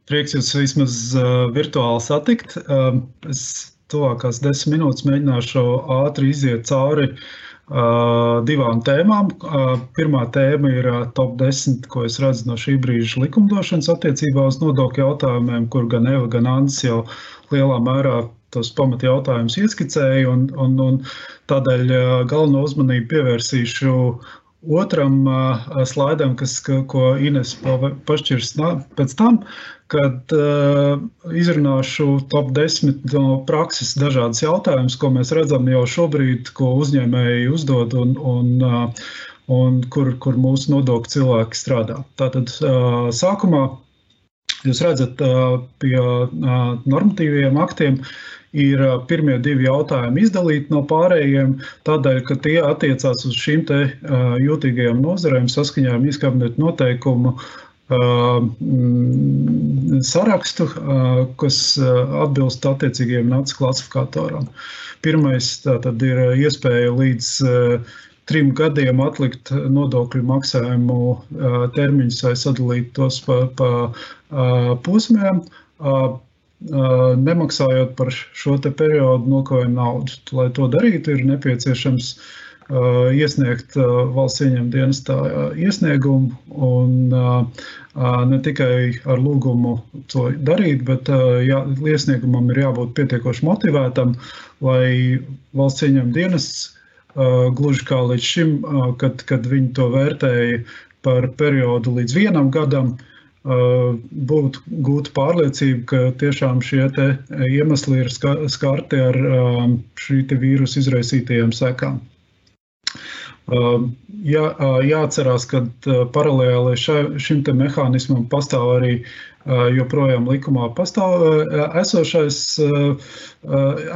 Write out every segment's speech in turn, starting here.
Prieks jūs vismaz virtuāli satikt. Es tuvākās 10 minūtes mēģināšu ātri iziet cauri divām tēmām. Pirmā tēma ir top 10, ko es redzu no šī brīža likumdošanas attiecībā uz nodokļu jautājumiem, kur gan Eva, gan Andis jau lielā mērā tos pamat jautājumus ieskicēja, un tādēļ galveno uzmanību pievērsīšu otram slaidam, ko Ines pašķirs pēc tam, kad izrunāšu top 10 no prakses dažādas jautājumus, ko mēs redzam jau šobrīd, ko uzņēmēji uzdod un kur mūsu nodokļu cilvēki strādā. Tātad sākumā jūs redzat pie normatīviem aktiem ir pirmie divi jautājumi izdalīti no pārējiem, tādēļ, ka tie attiecās uz šīm te jūtīgajām nozarēm saskaņā ar Ministrijas kabineta noteikumu sarakstu, kas atbilst attiecīgajiem NACS klasifikatoram. Pirmais tātad ir iespēja līdz 3 gadiem atlikt nodokļu maksājumu termiņus vai sadalīt tos pa posmiem, nemaksājot par šo te periodu nokavējuma naudu. Lai to darītu, ir nepieciešams iesniegt valsts ieņēmuma dienestā iesniegumu un ne tikai ar lūgumu to darīt, bet iesniegumam ir jābūt pietiekoši motivētam, lai valsts ieņēmuma dienests gluži kā līdz šim, kad viņi to vērtēja par periodu līdz 1 gadam, būtu gūta pārliecība, ka tiešām šie te iemesli ir skarti ar šī te vīrusu izraisītajiem sekām. Jāatcerās, ka paralēli šim te mehānismam pastāv arī joprojām likumā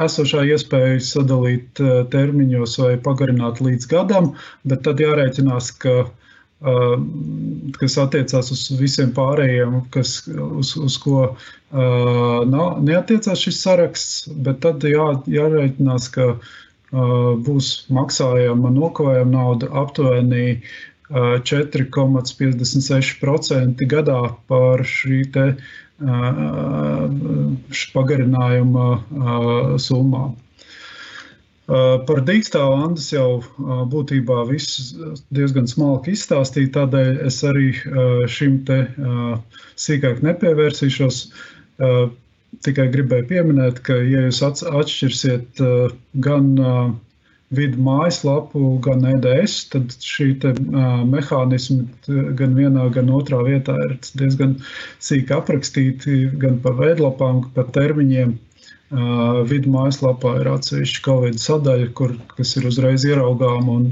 esošā iespēja sadalīt termiņos vai pagarināt līdz gadam, bet tad jārēķinās, kas attiecās uz visiem pārējiem, uz ko neattiecās šis saraksts, bet tad jārēķinās, ka būs maksājama nokavējuma nauda aptuveni 4,56% gadā par šī te pagarinājuma summām. Par dīkstāvu Andis jau būtībā viss diezgan smalki izstāstīja, tādēļ es arī šim te sīkāk nepievērsīšos. Tikai gribēju pieminēt, ka ja jūs atšķirsiet gan vidu mājaslapu, gan EDS, tad šī te mehānismi gan vienā, gan otrā vietā ir diezgan sīki aprakstīti, gan pa veidlapām, pa termiņiem. Vidu mājaslapā ir atsevišķa Covid sadaļa, kas ir uzreiz ieraugām un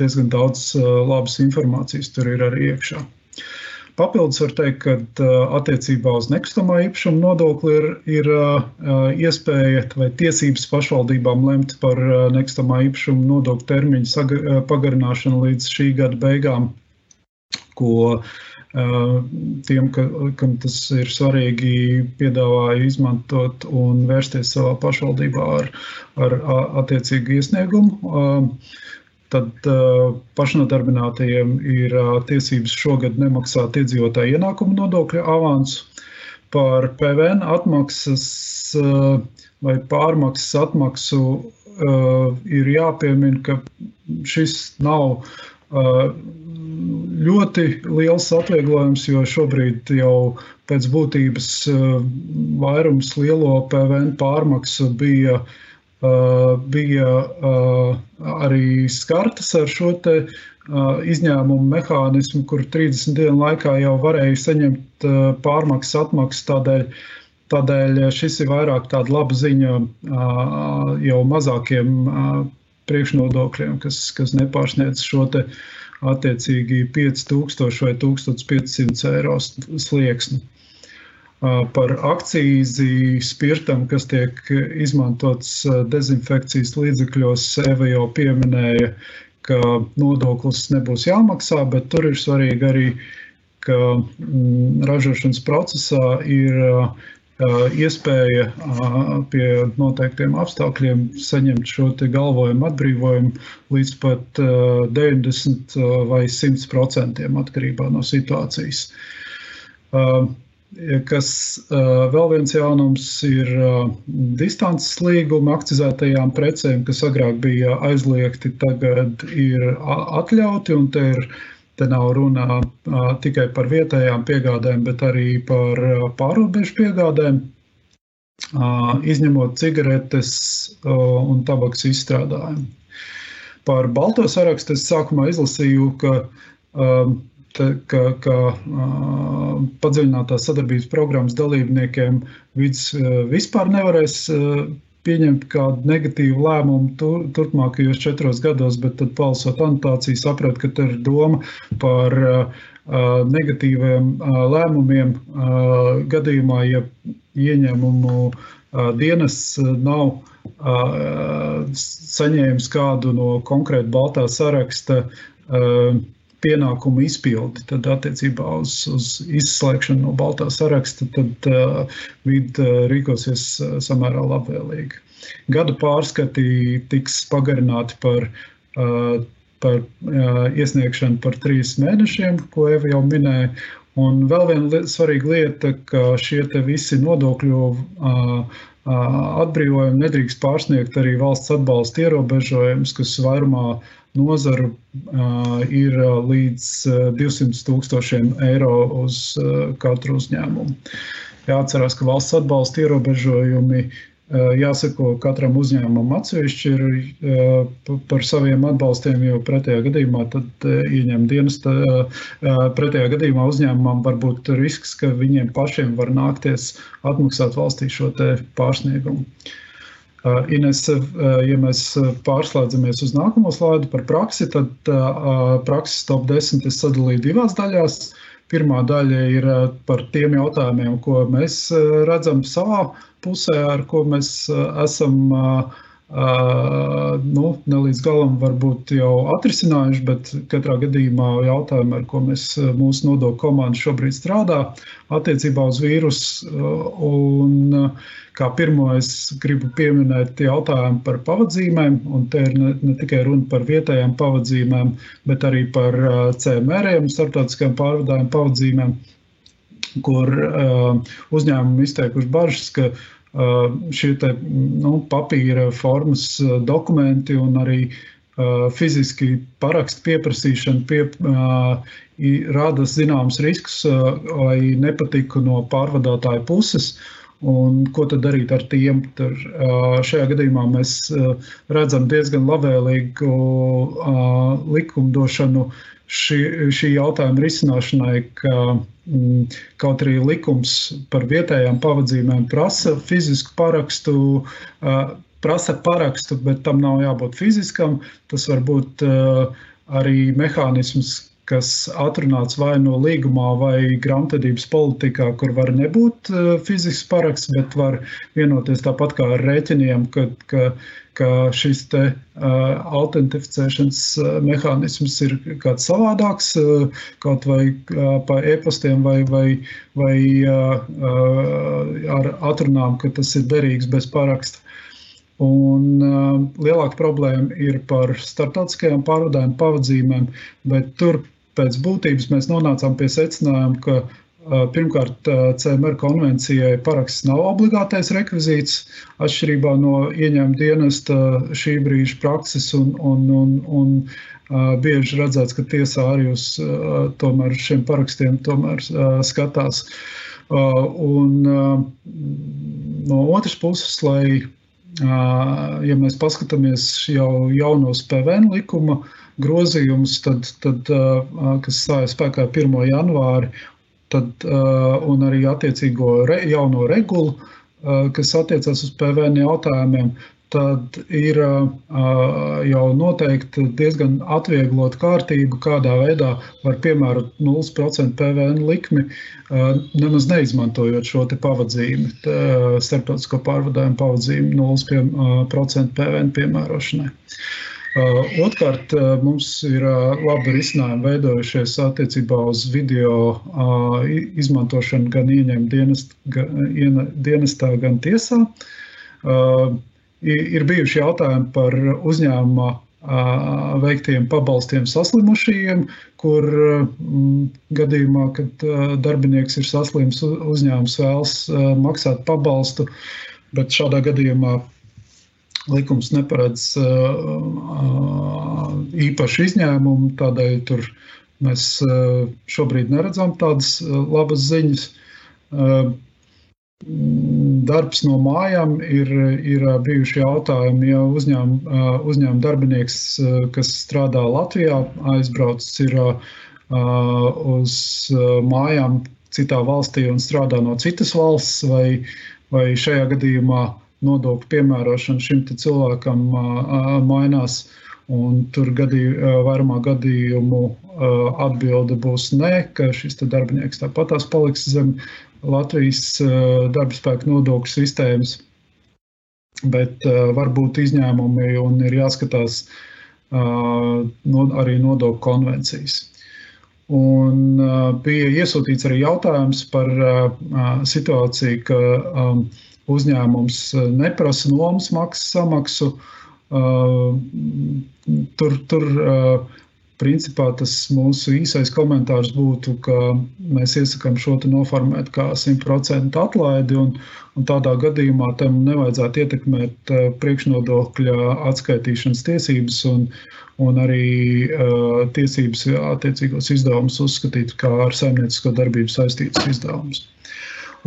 diezgan daudz labas informācijas tur ir arī iekšā. Papildus var teikt, ka attiecībā uz nekustamā īpašuma nodokli ir iespēja vai tiesības pašvaldībām lemt par nekustamā īpašuma nodokļu termiņu pagarināšanu līdz šī gada beigām, ko tiem, kam tas ir svarīgi, piedāvāja izmantot un vērsties savā pašvaldībā ar attiecīgu iesniegumu. Tad pašnodarbinātajiem ir tiesības šogad nemaksāt iedzīvotāju ienākumu nodokļu avansu. Par PVN atmaksas vai pārmaksas atmaksu ir jāpiemina, ka šis nav ļoti liels atvieglojums, jo šobrīd jau pēc būtības vairums lielo PVN pārmaksu bija arī skartas ar šo te izņēmumu mehānismu, kur 30 dienu laikā jau varēja saņemt pārmaksas atmaksu, tādēļ šis ir vairāk tāda laba ziņa jau mazākiem priekšnodokļiem, kas nepārsniedz šo te attiecīgi 5000 vai 1500 eiro slieksni. Par akcīzi spirtam, kas tiek izmantots dezinfekcijas līdzekļos, Eva jau pieminēja, ka nodoklis nebūs jāmaksā, bet tur ir svarīgi arī, ka ražošanas procesā ir iespēja pie noteiktiem apstākļiem saņemt šo te galvojumu atbrīvojumu līdz pat 90 vai 100% atkarībā no situācijas. Kas vēl viens jaunums ir distances līguma akcizētajām precēm, kas agrāk bija aizliegti, tagad ir atļauti, un te nav runa tikai par vietējām piegādēm, bet arī par pārrobežu piegādēm, izņemot cigaretes un tabaks izstrādājumu. Par balto sarakstu es sākumā izlasīju, ka padziļinātās sadarbības programmas dalībniekiem vispār nevarēs pieņemt kādu negatīvu lēmumu turpmākajos 4 gados, bet tad palasot anotāciju saprat, ka te ir doma par negatīviem lēmumiem gadījumā, ja ieņēmumu dienests nav saņēmis kādu no konkrēta baltā saraksta pienākumu izpildi, tad attiecībā uz izslēgšanu no baltā saraksta, tad vide rīkosies samērā labvēlīgi. Gada pārskati tiks pagarināti par iesniegšanu par 3 mēnešiem, ko Eva jau minēja. Un vēl viena svarīga lieta, ka šie te visi nodokļu atbrīvojumi nedrīkst pārsniegt arī valsts atbalsta ierobežojumus, kas vairumā nozaru ir līdz 200,000 eiro uz katru uzņēmumu. Jāatcerās, ka valsts atbalsta ierobežojumi jāsako katram uzņēmumam atsevišķi ir par saviem atbalstiem, jo pretējā gadījumā tad pretējā gadījumā uzņēmumam var būt risks, ka viņiem pašiem var nākties atmaksāt valstī šo te pārsniegumu. Ines, ja mēs pārslēdzamies uz nākamo slaidu par praksi, tad prakses top 10 es sadalīju 2 daļās. Pirmā daļa ir par tiem jautājumiem, ko mēs redzam savā pusē, ar ko mēs esam ne līdz galam varbūt jau atrisinājuši, bet katrā gadījumā jautājumi, ar ko mūsu nodokļu komanda šobrīd strādā attiecībā uz vīrusu. Un kā pirmo es gribu pieminēt jautājumu par pavadzīmēm, un te ir ne tikai runa par vietējām pavadzīmēm, bet arī par CMR-iem, starptautiskajām pārvadājumu pavadzīmēm, kur uzņēmumi izteikuši bažas, ka šie te papīra formas dokumenti un arī fiziski parakstu pieprasīšana rada zināms riskus vai nepatiku no pārvadātāja puses. Un ko tad darīt ar tiem? Šajā gadījumā mēs redzam diezgan labvēlīgu likumdošanu šī jautājuma risināšanai, ka kaut arī likums par vietējām pavadzīmēm prasa fizisku parakstu, bet tam nav jābūt fiziskam. Tas var būt arī mehānisms, kas atrunāts vai no līgumā vai grāmatvedības politikā, kur var nebūt fizisks paraksts, bet var vienoties tāpat kā ar rēķiniem, ka šis te autentificēšanas mehānisms ir kāds savādāks, kaut vai pa e-pastiem vai ar atrunām, ka tas ir derīgs bez paraksta. Un lielāka problēma ir par starptautiskajām pārvadājumu pavadzīmēm, bet tur pēc būtības mēs nonācām pie secinājuma, ka pirmkārt CMR konvencijai paraksts nav obligātais rekvizīts, atšķirībā no ieņēmuma dienesta šī brīža prakses un bieži redzēts, ka tiesā arī uz tomēr šiem parakstiem tomēr skatās. Un no otras puses, ja mēs paskatāmies jau jaunos PVN likuma grozījumus, tad kas stājas spēkā 1. janvāri, un arī attiecīgo jauno regulu, kas attiecās uz PVN jautājumiem, tad ir jau noteikti diezgan atvieglot kārtību, kādā veidā var piemērot 0% PVN likmi, nemaz neizmantojot šo te pavadzīmi, starptautisko pārvadājumu pavadzīmi 0% PVN piemērošanai. Otrkārt, mums ir labi risinājumi veidojušies attiecībā uz video izmantošanu gan ieņēmuma dienestā, gan tiesā. Ir bijuši jautājumi par uzņēmuma veiktiem pabalstiem saslimušajiem, kur gadījumā, kad darbinieks ir saslims, uzņēmums vēlas maksāt pabalstu, bet šādā gadījumā likums neparedz īpašu izņēmumu, tādēļ tur mēs šobrīd neredzam tādas labas ziņas. Darbs no mājām ir bijuši jautājumi, ja uzņēmuma darbinieks, kas strādā Latvijā, aizbraucis ir uz mājām citā valstī un strādā no citas valsts, vai šajā gadījumā nodokļu piemērošana šim te cilvēkam mainās, un tur vairumā gadījumu atbilde būs nē, ka šis te darbinieks tāpatās paliks zem Latvijas darbaspēka nodokļu sistēmas, bet var būt izņēmumi un ir jāskatās arī nodokļu konvencijas. Un bija iesūtīts arī jautājums par situāciju, ka uzņēmums neprasa nomas maksas samaksu. Tur principā tas mūsu īsais komentārs būtu, ka mēs iesakām šo te noformēt kā 100% atlaidi, un tādā gadījumā tam nevajadzētu ietekmēt priekšnodokļa atskaitīšanas tiesības un arī tiesības attiecīgos izdevumus uzskatīt kā ar saimniecisko darbību saistītus izdevumus.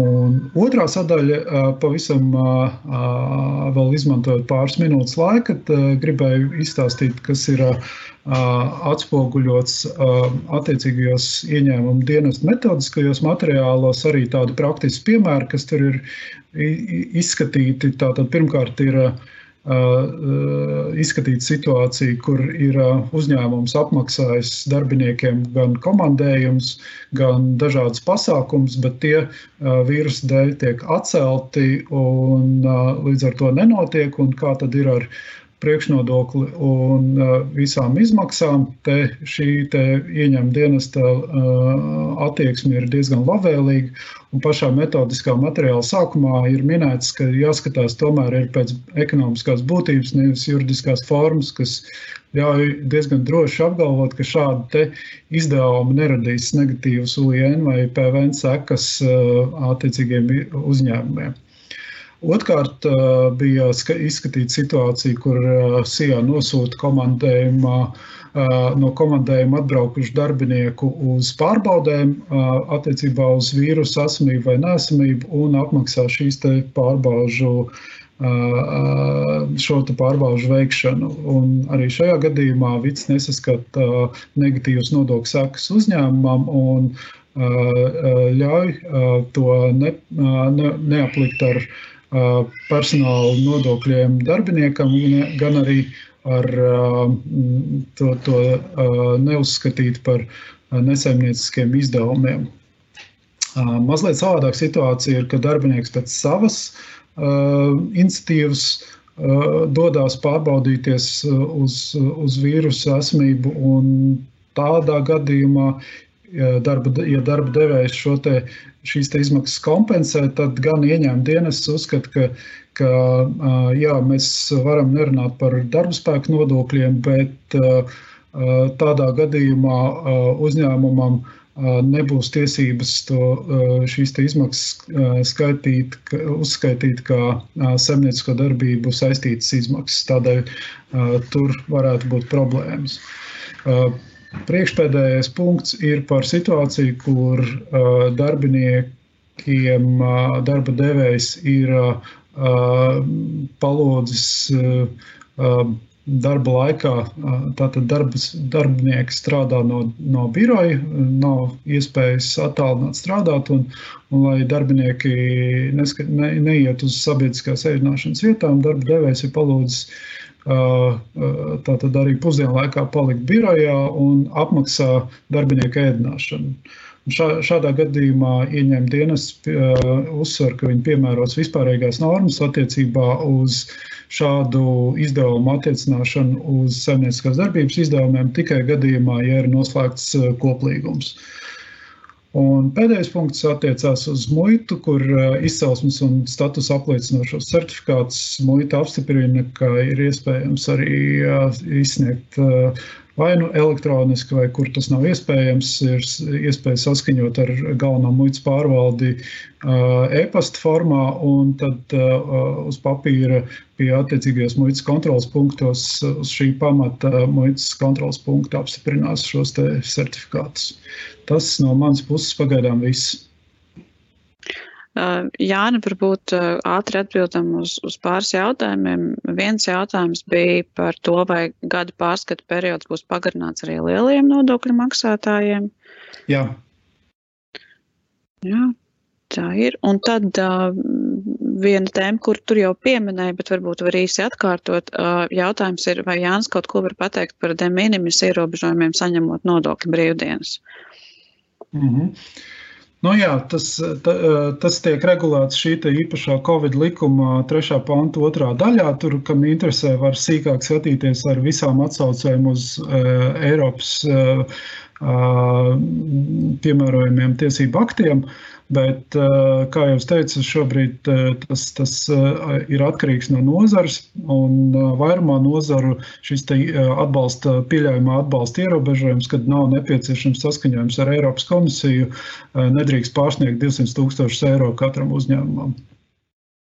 Un otrā sadaļa pavisam vēl izmantojot pāris minūtes laika, gribēju izstāstīt, kas ir atspoguļots attiecīgajos ieņēmumu dienestu metodiskajos materiālos, arī tādi praktiski piemēri, kas tur ir izskatīti. Tātad pirmkārt ir izskatīt situāciju, kur ir uzņēmums apmaksājis darbiniekiem gan komandējums, gan dažādas pasākums, bet tie vīrusa dēļ tiek atcelti un līdz ar to nenotiek, un kā tad ir ar priekšnodokli un visām izmaksām. Šī ieņēmuma dienesta attieksme ir diezgan labvēlīga, un pašā metodiskā materiāla sākumā ir minēts, ka jāskatās tomēr ir pēc ekonomiskās būtības, nevis juridiskās formas, kas ļauj diezgan droši apgalvot, ka šādi izdevumi neradīs negatīvas UIN vai PVN sekas attiecīgiem uzņēmumiem. Otkārt bija izskatīta situācija, kur SIA nosūta no komandējuma atbraukušu darbinieku uz pārbaudēm attiecībā uz vīrusu esamību vai neesamību un apmaksā šīs te šo te pārbaužu veikšanu. Un arī šajā gadījumā VICS nesaskata negatīvas nodokļu sekas uzņēmumam un ļauj to neaplikt ar personāla nodokļiem darbiniekam, gan arī ar to neuzskatīt par nesaimnieciskiem izdevumiem. Mazliet savādāk situācija ir, ka darbinieks pēc savas iniciatīvas dodās pārbaudīties uz vīrusu esamību, un tādā gadījumā, ja darba devējs šīs izmaksas kompensē, tad gan ieņēmuma dienests uzskata, ka jā, mēs varam nerunāt par darbaspēka nodokļiem, bet tādā gadījumā uzņēmumam nebūs tiesības šīs izmaksas uzskaitīt kā saimniecisko darbību saistītas izmaksas. Tādēļ tur varētu būt problēmas. Priekšpēdējais punkts ir par situāciju, kur darbiniekiem darba devējs ir palūdzis darba laikā, tātad darbinieki strādā no biroja, nav iespējas attālināt strādāt, un lai darbinieki neiet uz sabiedriskās ēdināšanas vietām, darba devējs ir palūdzis tātad arī pusdienu laikā palikt birojā un apmaksā darbinieku ēdināšanu. Šādā gadījumā ieņēmuma dienests uzsver, ka viņi piemēros vispārīgās normas attiecībā uz šādu izdevumu attiecināšanu uz saimnieciskās darbības izdevumiem tikai gadījumā, ja ir noslēgts koplīgums. Un pēdējais punkts attiecās uz muitu, kur izcelsmes un status apliecinošos certifikātus muita apstiprina, ka ir iespējams arī izsniegt vai nu elektroniski, vai kur tas nav iespējams, ir iespēja saskaņot ar galveno muitas pārvaldi e-pasta formā, un tad uz papīra pie attiecīgajos muitas kontrolas punktos uz šī pamata muitas kontrolas punkta apstiprinās šos te certifikātus. Tas no manas puses pagaidām viss. Jāni, varbūt ātri atbildam uz pāris jautājumiem. Viens jautājums bija par to, vai gada pārskata periods būs pagarināts arī lielajiem nodokļu maksātājiem. Jā. Jā, tā ir. Un tad viena tēma, kur tur jau pieminēja, bet varbūt var īsi atkārtot, jautājums ir, vai Jānis kaut ko var pateikt par de minimis ierobežojumiem saņemot nodokļu brīvdienas? Nu jā, tas tiek regulēts šī īpašā Covid likuma 3. panta 2. daļā. Tur, kam interesē, var sīkāk skatīties ar visām atsaucēm uz Eiropas piemērojumiem tiesību aktiem. Bet, kā jau es teicu, šobrīd tas ir atkarīgs no nozares, un vairumā nozaru šis pieļaujamā atbalsta ierobežojums, kad nav nepieciešams saskaņojums ar Eiropas komisiju, nedrīkst pārsniegt 200 000 eiro katram uzņēmumam.